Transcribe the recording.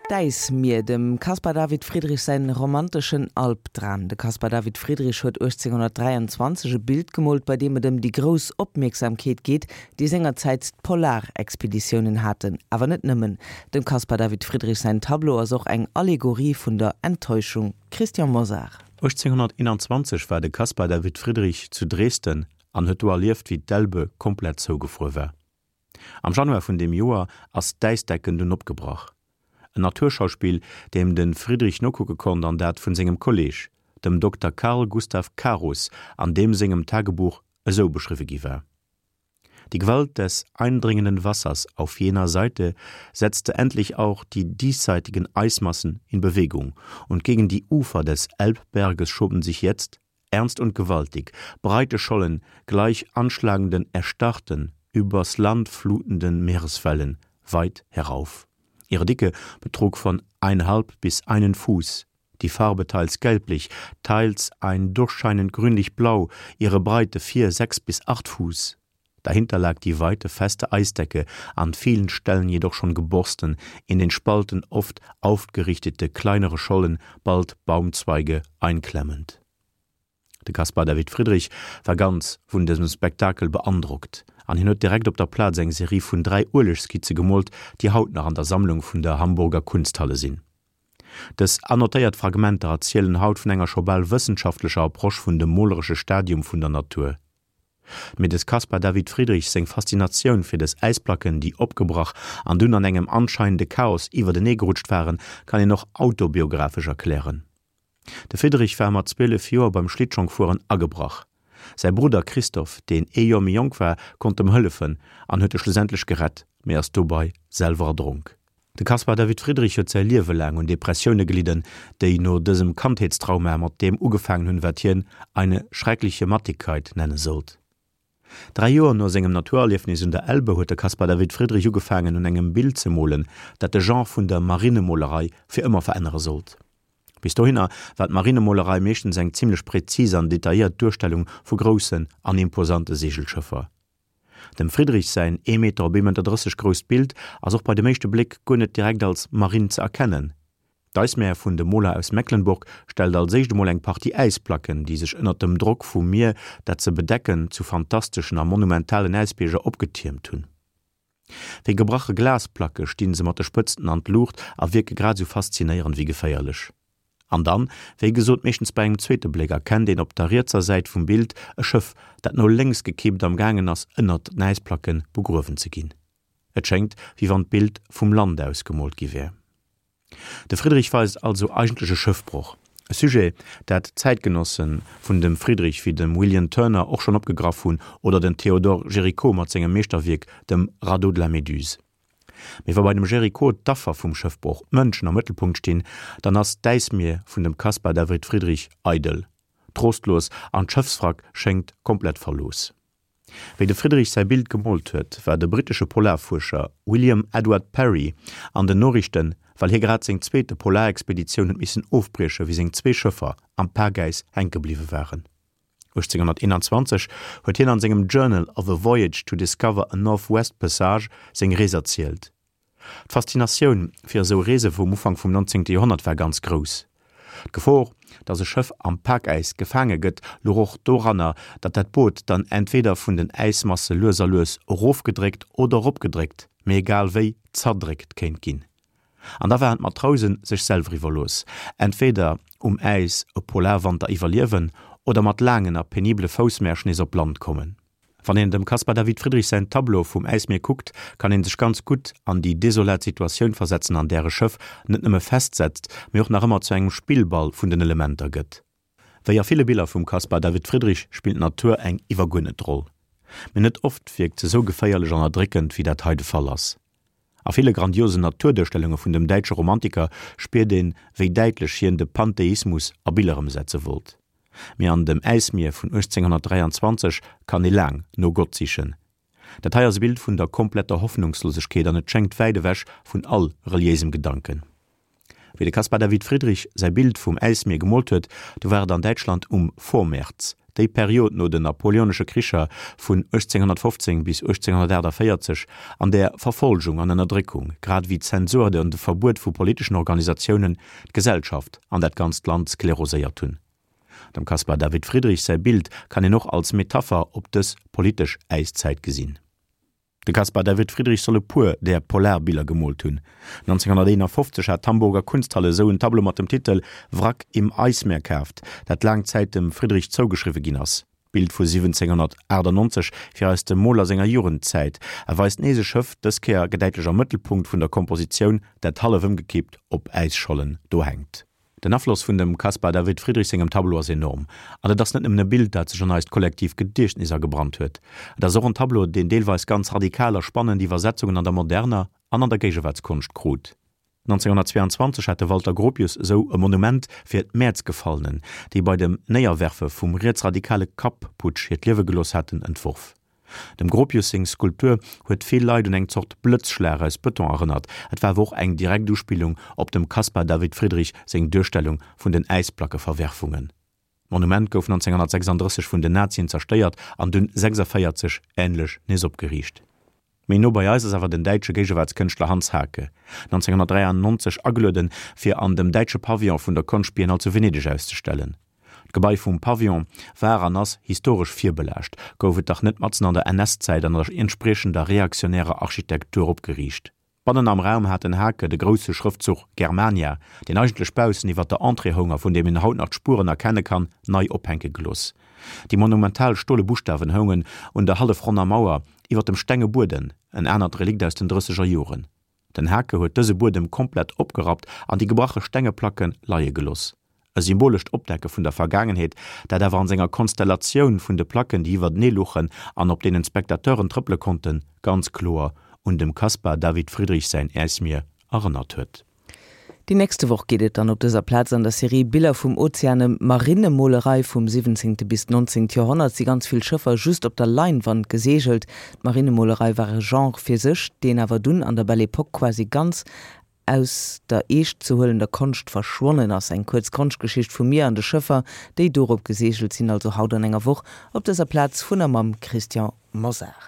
D'Äismier, dem Caspar David Friedrich säin romanteschen Albdram. De Caspar David Friedrich huet 1823 e Bild gemoolt, bei deem et ëm déi grouss Opmierksamkeet geet, déi sengerzäits d'Polarexpeditiounen haten. Awer net nëmmen. Dem Caspar David Friedrich säin Tableau ass och eng Allegorie vun der Enttäuschung. Christian Mosar. 1821 war de Caspar David Friedrich zu Dresden an huet do erlieft, wéi d'Elbe komplett zougefruer war. Am Januar vun deem Joer ass d'Äisdecken dunn opgebrach. En Naturschauspill, deem de Friedrich nokucke konnt an dat vun sengem Kolleeg, dem Dokter Carl Gustav Carus, an deem sengem Tagebuch esou beschriwwe gi war, Die Gewalt des eindringenden Wassers auf jener Seite setzte endlich auch die diesseitigen Eismassen in Bewegung, und gegen die Ufer des Elbberges schoben sich jetzt, ernst und gewaltig, breite Schollen gleich anschlagenden, erstarrten, übers Land flutenden Meereswellen weit herauf. Ihre Dicke betrug von einhalb bis einen Fuß, die Farbe teils gelblich, teils ein durchscheinend grünlich-blau, ihre Breite vier, sechs bis acht Fuß. Dahinter lag die weite, feste Eisdecke, an vielen Stellen jedoch schon geborsten, in den Spalten oft aufgerichtete kleinere Schollen, bald Baumzweige einklemmend. De Caspar David Friedrich war ganz vun dësem Spektakel beandrockt an hien huet direkt op der Plaz eng Serie vun 3 Uelegskizze gemoolt, déi haut nach an der Sammlung vun der Hamburger Kunsthalle sinn. Dës annotéiert Fragmenter erzielen haut vun enger scho bal wëssenschaftlecher Approche vun dem moleresche Stadium vun der Natur. Mee des Caspar David Friedrich seng Faszinatioun fir des Äisplacken, déi opgebrach an dunn an engem anscheinende Chaos iwwertenee gerutscht waren, kann een och autobiographesch erklären. De Friedrich war mat 12 Joer beim Schlittschongfueren agebrach. Säi Brudder Christoph, deen ee Joer méi jonk war, konnt em hëllefen an huet e schlussendlech gerett, mee ass dobei selwer erdronk. De Caspar David Friedrich huet säi Liewe laang un Depressioune gelidden, déi no dësem Kandheetstrauma mat deem ugefaangen hunn, wat hien eine schreckliche Mattigkeit nenne sollt. Dräi Joer no sengem Naturerliefnis un der Elbe huet de Caspar David Friedrich ugefaangen un engem Bild ze molen, dat de Genre vun der Marinemolerei fir ëmmer verännere sollt. Bis dohinner war d'Marinemolerei meeschtens eng zimmlech präzis an detailléiert Duerstellung vu groussen an imposante Seegelschëffer. Dem Friedrich säin ee Meter op ee Mënter 30 grousst Bild ass och bei dem éischte Bléck guer net direkt als Marinn ze erkennen. D'Eismeer vun dem Moler aus Mecklenburg stellt als éischt emol eng Partie Äisplacken, déi sech ënnert dem Drock vum Mier, dat se bedecken, zu fantasteschen a monumentalen Äisbierger opgetiermt hunn. Wéi gebrache Glasplacke sti se mat de Spëtzten an d'Luucht a wierke grad esou faszinéierend wéi geféierlech. An dann, wéi gesot, meeschtens bei engem zweete Bléck erkennt een op der rietser Säit vum Bild e Schëff, dat no lénks gekippt am gaangen ass ënnert den Äisplacken begruewen ze ginn. Et schéngt, wéi wann d'Bild vum Land aus gemoolt gi wär. De Friedrich weist also eigentlech e Schëffbroch, e Sujet, dat Zäitgenosse vun dem Friedrich wéi dem William Turner och schonn opgegraff hunn oder den Théodore Géricault mat sengem Meeschterwierk, dem Radeau de la Méduse. Mee wa bei dem Géricault d'Affer vum Schëffbroch, d'Mënschen, am Mëttelpunkt stinn, dann ass d'Äismier vun dem Caspar David Friedrich eidel, trostlos an d'Schëffswrack schéngt komplett verlooss. Wéi de Friedrich säi Bild gemoolt huet, war de brittesche Polarfuerscher William Edward Parry an den Noriichten, well hie grad seng zweete Polarexpeditioun huet missen ofbrieche wéi seng zwee Schëffer am Pakäis hänke bliwwe waren. 1821 huet hien an sengem Journal of a Voyage to Discover a North-West Passage seng Rees erzielt. D'Faszinatioun fir esou Reese vum Ufank vum 19. Joerhonnert war ganz grouss. D'Gefor, datt e Schëff am Pakäis gefaange gëtt, louch och doranner, datt dat Boot dann entweder vun den Äismasse lues a lues erofgedréckt oder eropgedréckt, mee egal wéi zerdréckt kéint ginn. An da waren d'Matrousen sech selwer iwwerlooss, entweder um Äis e Polarwanter iwwerliewen oder mat laangen a penibele Foussmärsch nees op Land kommen. Wann een dem Caspar David Friedrich säin Tableau vum Äismier kuckt, kann een sech ganz gutt an déi desolat Situatioun versetzen, an där e Schëff net nëmme festsetzt, mee och nach ëmmer zu engem Spillball vun den Elementer gëtt. Wéi a ville Biller vum Caspar David Friedrich spillt d'Natur eng iwwerguerdnet Roll. Mee net oft wierkt se sou geféierlech an erdréckend, wéi dat hei de Fall ass. A ville grandiosen Naturduerstellunge vun dem däitsche Romantiker spiert een, wéi däitlech hien de Pantheismus a Biller ëmsetze wollt. Mee an dem Äismier vun 1823 kann ee laang no Gott sichen. Dat hei ass e Bild vun der kompletter Hoffnungslosegkeet an et schéngt wäit ewech vun all reliéisem Gedanken. Wéi de Caspar David Friedrich säi Bild vum Äismier gemoolt huet, du war et an Däitschland um Vormärz, déi Period no den napoleonesche Kricher vun 1815 bis 1848, an där Verfolgung an Ënnerdréckung, grad ewéi Zensur an de Verbuet vu politeschen Organisatiounen d'Gesellschaft an dat ganzt Land skleroséiert hunn. Dem Caspar David Friedrich säi Bild kann een och als Metapher op dës politesch Äiszäit gesinn. De Caspar David Friedrich soll e puer där Polarbiller gemoolt hunn. 1951 hat d'Hamburger Kunsthalle esou en Tableau mat dem Titel Wrack im Eismeer kaaft, dat laang Zäit dem Friedrich zougeschriwwe ginn ass. D'Bild vu 1798 wier aus dem Moler senger Jugendzäit a weist nees e Schëff, dës Kéier gedäitlech am Mëttelpunkt vun der Kompositioun, dat hallef ëmgekippt op Äisschollen do hänkt. Den Afloss vun dem Caspar David Friedrich sengem Tableau ass enorm. An et ass net nëmmen e Bild, dat sech an eist kollektiv Gediechtnes agebrannt huet. Et ass och en Tableau, deen deelweis ganz radikal a spannend Iwwersetzungen an der moderner an an der Géigewaartskonscht krut. 1922 hat de Walter Gropius esou e Monument fir d'Mäerzgefallenen, déi bei dem Néierwerfe vum rietsradikale Kapp-Putsch hiert Liewe gelooss haten, entworf. Dem Gropius seng Skulptur huet vill Leit un eng Zort Blëtzschlag aus Bëton erënnert. Et war awer och eng direkt Uspillung op dem Caspar David Friedrich seng Duerstellung vun den Äisplackeverwerfungen. D'Monument gouf 1936 vun den Nazien zerstéiert an dunn 46 änlech nees opgeriicht. Méi no bei eis ass awer den däitsche Géigewaartskënschtler Hans Haacke, 1993 agelueden, fir an dem däitsche Pavillon vun der Konschtbiennale zu Venedeg auszestellen. D'Gebai vum Pavillon war an ass historesch virbelaascht, gouf et dach net matzen an der NS-Zäit an der entspriechender reaktionärer Architektur opgeriicht. Bannen am Raum hat den Haacke de grousse Schrëftzuch Germania, deen eigentlech baussen iwwer der Entrée houng a vun deem een haut nach d'Spueren erkenne kann, nei ophänke gelooss. Déi monumental stole Buschtawen houngen un der hallefronner Mauer iwwer dem stenge Bueden, en anert Relikt aus den drësseger Joren. Den Hake huet dëse Buedem komplett opgerappt an déi gebrache stenge Placke leie geloss. E symbolescht Opdecke vun der Vergaangenheet, dat awer an senger Konstellatioun vun de Placken, déi iwwertenee luchen an op deenen d'Spectateuren trëppele konnten, ganz kloer un dem Caspar David Friedrich säin Äismier erënnert huet. Déi nächste Woch geet et dann op dëser Plaz an der Serie Biller vum Ozean ëm d'Marinemolerei. Vum 17. bis 19. Joerhonnert si ganz vill Schëffer just op der Leinwand geseegelt. D'Marinemolerei war e Genre fir sech, deen awer dunn an der Belle Epoque quasi ganz aus der eescht ze huelender Konscht verschwonnen ass. Eng kuerz Konschtgeschicht vum Mier an de Schëffer, déi dorop geseegelt sinn, also haut an enger Woch op dëser Plaz vun a mam Christian Mosar.